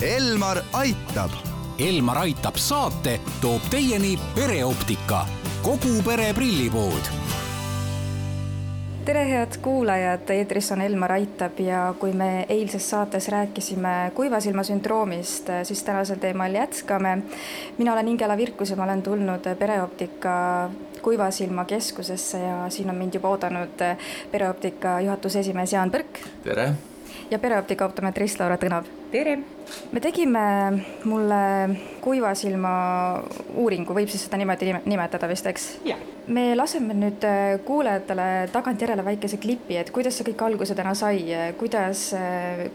Elmar aitab. Elmar aitab saate toob teieni Pereoptika, kogu pere prillipood. Tere head kuulajad, eetris on Elmar aitab ja kui me eilses saates rääkisime kuivasilma sündroomist, siis tänasel teemal jätkame. Mina olen Ingela Virkus ja ma olen tulnud Pereoptika kuivasilma keskusesse ja siin on mind juba oodanud Pereoptika juhatuse esimees Jaan Põrk. Tere! Ja Pereoptika optometrist Laura Tõnav. Tere! Me tegime mulle kuivasilma uuringu, võib siis seda niimoodi nimetada vist, eks? Ja. Me laseme nüüd kuulajatele tagantjärele väikese klipi, et kuidas see kõik alguse täna sai, kuidas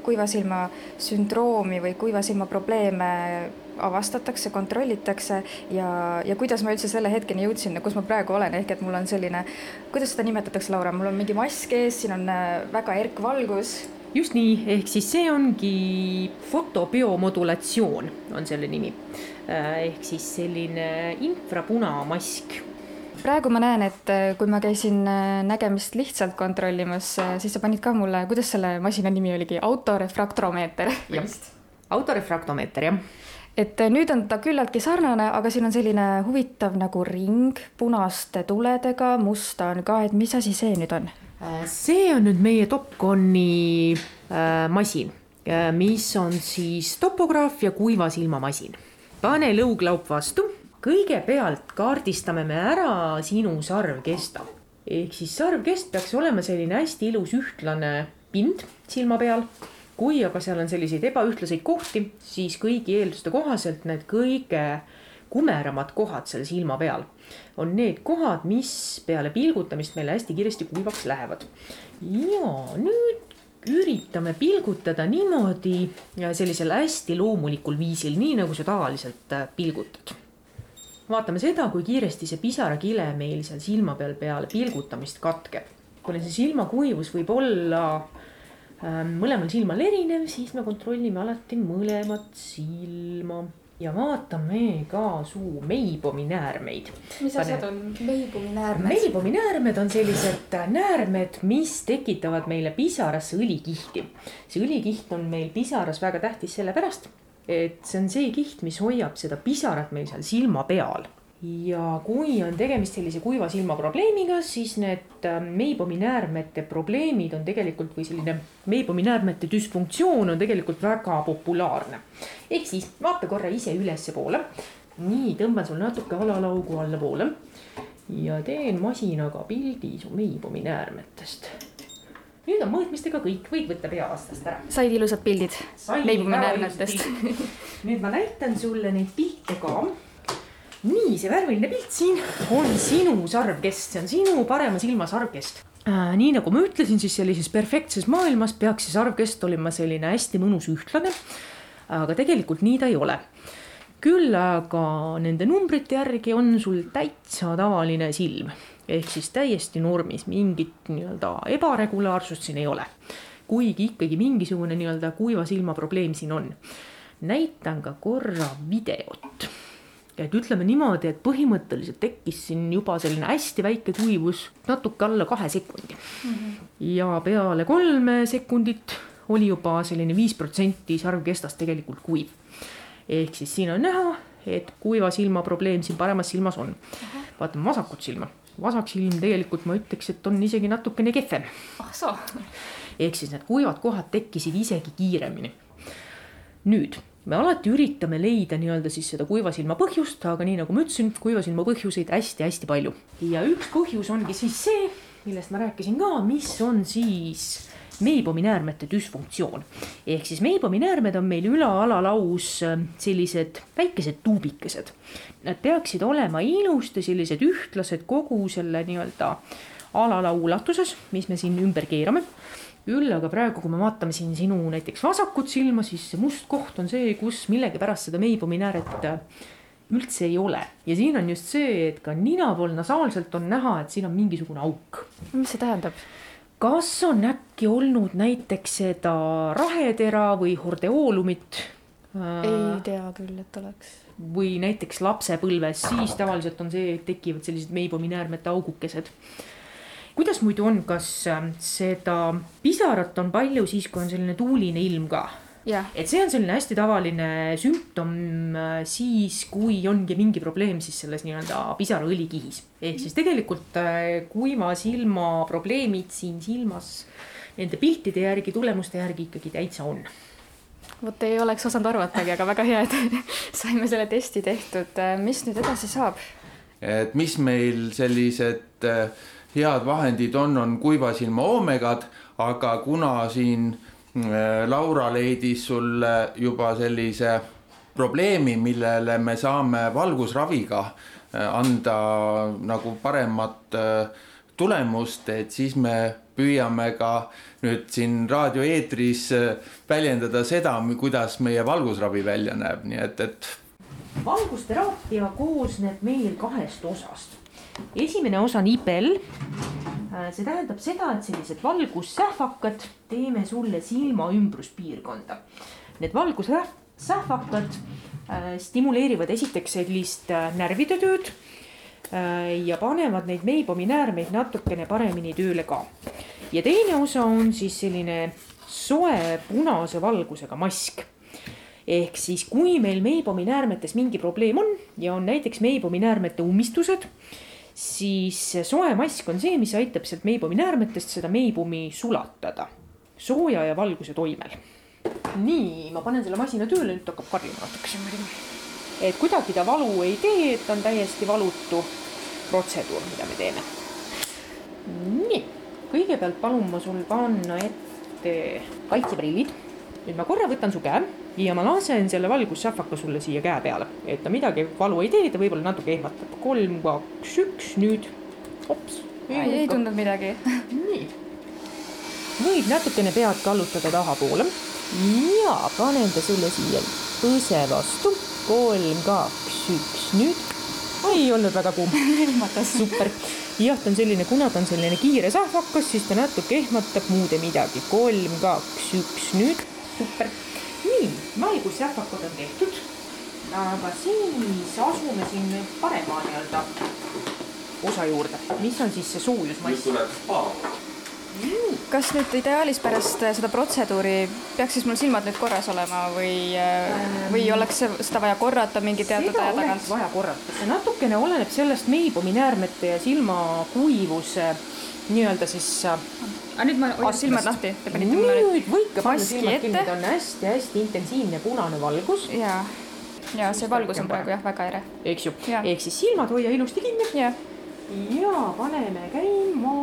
kuivasilma sündroomi või kuivasilma probleeme avastatakse, kontrollitakse ja kuidas ma üldse selle hetkeni jõudsin, kus ma praegu olen, ehk et mul on selline, kuidas seda nimetatakse, Laura, mul on mingi mask ees, siin on väga erkvalgus. Just nii, ehk siis see ongi fotobiomodulatsioon on selle nimi, ehk siis selline infrapunamask. Praegu ma näen, et kui ma käisin nägemist lihtsalt kontrollimas, siis sa panid ka mulle, kuidas selle masina nimi oligi, autorefraktomeeter. Autorefraktomeeter, jah. Et nüüd on ta küllaltki sarnane, aga siin on selline huvitav nagu ring punaste tuledega, musta on ka, et mis asi see nüüd on? See on nüüd meie Topconi masin, mis on siis topograaf ja kuivasilmamasin. Pane lõuglaup vastu. Kõigepealt kaardistame me ära sinu sarvkesta. Ehk siis sarvkest peaks olema selline hästi ilus ühtlane pind silma peal. Kui aga seal on selliseid ebaühtlaseid kohti, siis kõigi eelduste kohaselt need kõige kumeramad kohad selle silma peal on need kohad, mis peale pilgutamist meile hästi kiiresti kuivaks lähevad. Ja nüüd üritame pilgutada niimoodi sellisel hästi loomulikul viisil, nii nagu sa tavaliselt pilgutad. Vaatame seda, kui kiiresti see pisarakile meil seal silma peale pilgutamist katkeb. Kui see silmakuivus võib olla mõlemal silmal erinev, siis me kontrollime alati mõlemat silma. Ja vaatame ka suu meibominäärmeid. Mis asjad on meibominäärmed? Meibominäärmed on sellised näärmed, mis tekitavad meile pisarasse õlikihti. See õlikiht on meil pisaras väga tähtis sellepärast, et see on see kiht, mis hoiab seda pisarat meil seal silma peal. Ja kui on tegemist sellise kuiva silma probleemiga, siis need meibominäärmete probleemid on tegelikult või selline meibominäärmete dysfunktsioon on tegelikult väga populaarne. Ehk siis vaata korra ise ülesse poole. Nii, tõmban sul natuke alalaugu alla poole ja teen masinaga pildi su meibominäärmetest. Nüüd on mõõtmistega kõik, võid võtta peavastast ära. Said ilusad pildid meibominäärmetest. Nüüd ma näitan sulle neid pilte ka. Nii, see värviline pilt siin on sinu sarvkest, see on sinu parema silma sarvkest. Nii nagu ma ütlesin, siis sellises perfektses maailmas peaks see sarvkest olema selline hästi mõnus ühtlane, aga tegelikult nii ta ei ole. Küll aga nende numbrite järgi on sul täitsa tavaline silm, ehk siis täiesti normis, mingit ebaregulaarsust siin ei ole. Kuigi ikkagi mingisugune kuiva silma probleem siin on. Näitan ka korra videot. Et ütleme niimoodi, et põhimõtteliselt tekkis siin juba selline hästi väike kuivus natuke alla 2 sekundi. Ja peale 3 sekundit oli juba selline 5% sarvkestast tegelikult kuiv. Ehk siis siin on näha, et kuiva silma probleem siin paremas silmas on. Vaatame vasakut silma. Vasak silm tegelikult ma ütleks, et on isegi natukene kehvem. Ehk siis need kuivad kohad tekkisid isegi kiiremini. Nüüd me alati üritame leida siis seda kuivasilma põhjust, aga nii nagu ma ütlesin, kuivasilma põhjuseid hästi-hästi palju. Ja üks põhjus ongi siis see, millest ma rääkisin ka, mis on siis meibominäärmete dysfunktsioon. Ehk siis meibominäärmed on meil üla-alalaus sellised väikesed tuubikesed. Nad peaksid olema ilusti sellised ühtlased kogu selle alalau ulatuses, mis me siin ümber keerame. Küll aga praegu, kui me vaatame siin sinu näiteks vasakut silma, siis see must koht on see, kus millegi pärast seda meibominääret üldse ei ole. Ja siin on just see, et ka nina pool nasaalselt on näha, et siin on mingisugune auk. Mis see tähendab? Kas on äkki olnud näiteks seda rahetera või hordeoolumit? Ei tea küll, et oleks. Või näiteks lapsepõlves, siis tavaliselt on see, et tekivad sellised meibominäärmete augukesed. Kuidas muidu on, kas seda pisarat on palju siis, kui on selline tuuline ilm ka? Et see on selline hästi tavaline sümptom siis, kui ongi mingi probleem siis selles nii-öelda pisaraõlikihis. Ehk siis tegelikult kuiva silma probleemid siin silmas nende piltide järgi, tulemuste järgi ikkagi täitsa on. Vot ei oleks osanud arvatagi, aga väga hea, et saime selle testi tehtud. Mis nüüd edasi saab? Et mis meil sellised head vahendid on kuiva silma oomegad, aga kuna siin Laura leidis sulle juba sellise probleemi, millele me saame valgusraviga anda nagu paremat tulemust, et siis me püüame ka nüüd siin raadioeetris väljendada seda, kuidas meie valgusravi välja näeb, nii et valgusteraapia koosneb meil 2 osast. Esimene osa on IPL. See tähendab seda, et sellised valgussähvakad teeme sulle silma ümbruspiirkonda. Need valgussähvakad stimuleerivad esiteks sellist närvide tööd ja panevad neid Meibomi näärmeid natukene paremini tööle ka. Ja teine osa on siis selline soe punase valgusega mask. Ehk siis kui meil Meibomi näärmetes mingi probleem on ja on näiteks Meibomi näärmete ummistused, siis soe mask on see, mis aitab sealt Meibomi näärmetest seda Meibomi sulatada sooja ja valguse toimel. Nii, ma panen selle masina tööle, nüüd hakkab karjuma natukese muidugi. Et kuidagi ta valu ei tee, et on täiesti valutu protseduur, mida me teeme. Nii, kõigepealt palun ma sul panna ette kaitseprillid. Nüüd ma korra võtan su käe ja ma lasen selle valgussähvaka sulle siia käe peale, et ta midagi valu ei tee, ta võib-olla natuke ehmatab. 3, 2, 1, nüüd. Hops. Ei tundnud midagi. Nii. Võid natukene pead kallutada taha poole ja panen ta sulle siia põse vastu. 3, 2, 1, nüüd. Ei olnud väga kuum. Super. Jah, ta on selline, kuna ta on selline kiire sähvakas, siis ta natuke ehmatab muude midagi. 3, 2, 1, nüüd. Super. Nii, valgussähvakad on tehtud, aga siis asume siin parema nii-öelda osa juurde, mis on siis see soojusmass. Kas nüüd ideaalis pärast seda protseduuri peaks siis mul silmad nüüd korras olema või oleks seda vaja korrata mingi teatud aja tagant? Seda oleks vaja korrata. See natukene oleneb sellest Meibomi näärmete ja silma kuivuse nii-öelda siis nüüd ma hoian silmad lahti. Nüüd võike panna silmad kinni, ta on hästi intensiivne punane valgus. Ja see valgus on praegu väga ere. Eks ju, ehk siis silmad hoia ilusti kinni. Ja paneme käima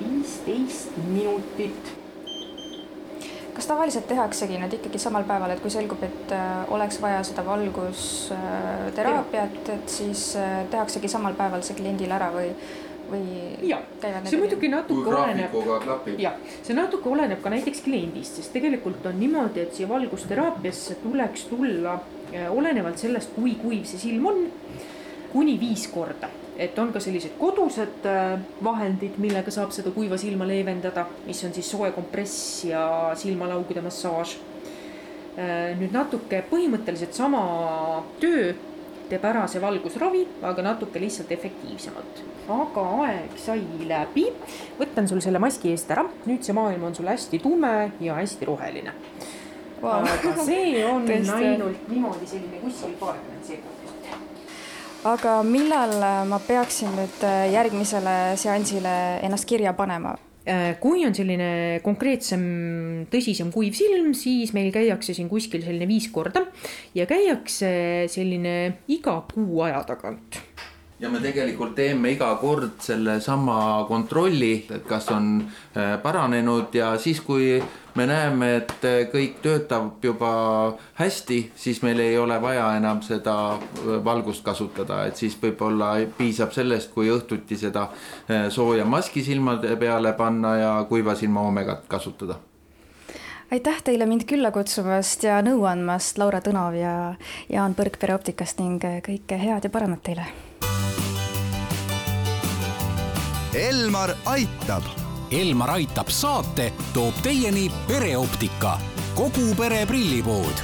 15 minutit. Kas tavaliselt tehaksegi nüüd ikkagi samal päeval, et kui selgub, et oleks vaja seda valgusteraapiat, et siis tehaksegi samal päeval see kliendil ära või käivad see muidugi natuke oleneb. Ja, see natuke oleneb ka näiteks kliendist, sest tegelikult on niimoodi, et siia valgusteraapiasse tuleks tulla olenevalt sellest, kui kuiv see silm on, kuni 5 korda. Et on ka sellised kodused vahendid, millega saab seda kuiva silma leevendada, mis on siis soe kompress ja silmalaugude massaaž. Nüüd natuke põhimõtteliselt sama töö teeb ära see valgusravi, aga natuke lihtsalt efektiivsemalt. Aga aeg sai läbi. Võtan sul selle maski eest ära. Nüüd see maailm on sul hästi tume ja hästi roheline. Aga see on ainult niimoodi selline kuskil 20 sekundit. Aga millal ma peaksin nüüd järgmisele seansile ennast kirja panema? Kui on selline konkreetsem, tõsisem kuiv silm, siis meil käiakse siin kuskil selline 5 korda ja käiakse selline iga kuu aja tagant. Ja me tegelikult teeme iga kord selle sama kontrolli, et kas on paranenud ja siis kui me näeme, et kõik töötab juba hästi, siis meil ei ole vaja enam seda valgust kasutada, et siis võib-olla piisab sellest, kui õhtuti seda sooja maski silmade peale panna ja kuiva silma oomegat kasutada. Aitäh teile mind külla kutsumast ja nõu andmast, Laura Tõnov ja Jaan Põrk Pereoptikast ning kõike head ja paremat teile. Elmar aitab. Elmar aitab saate toob teieni Pereoptika, kogu pere prillipood.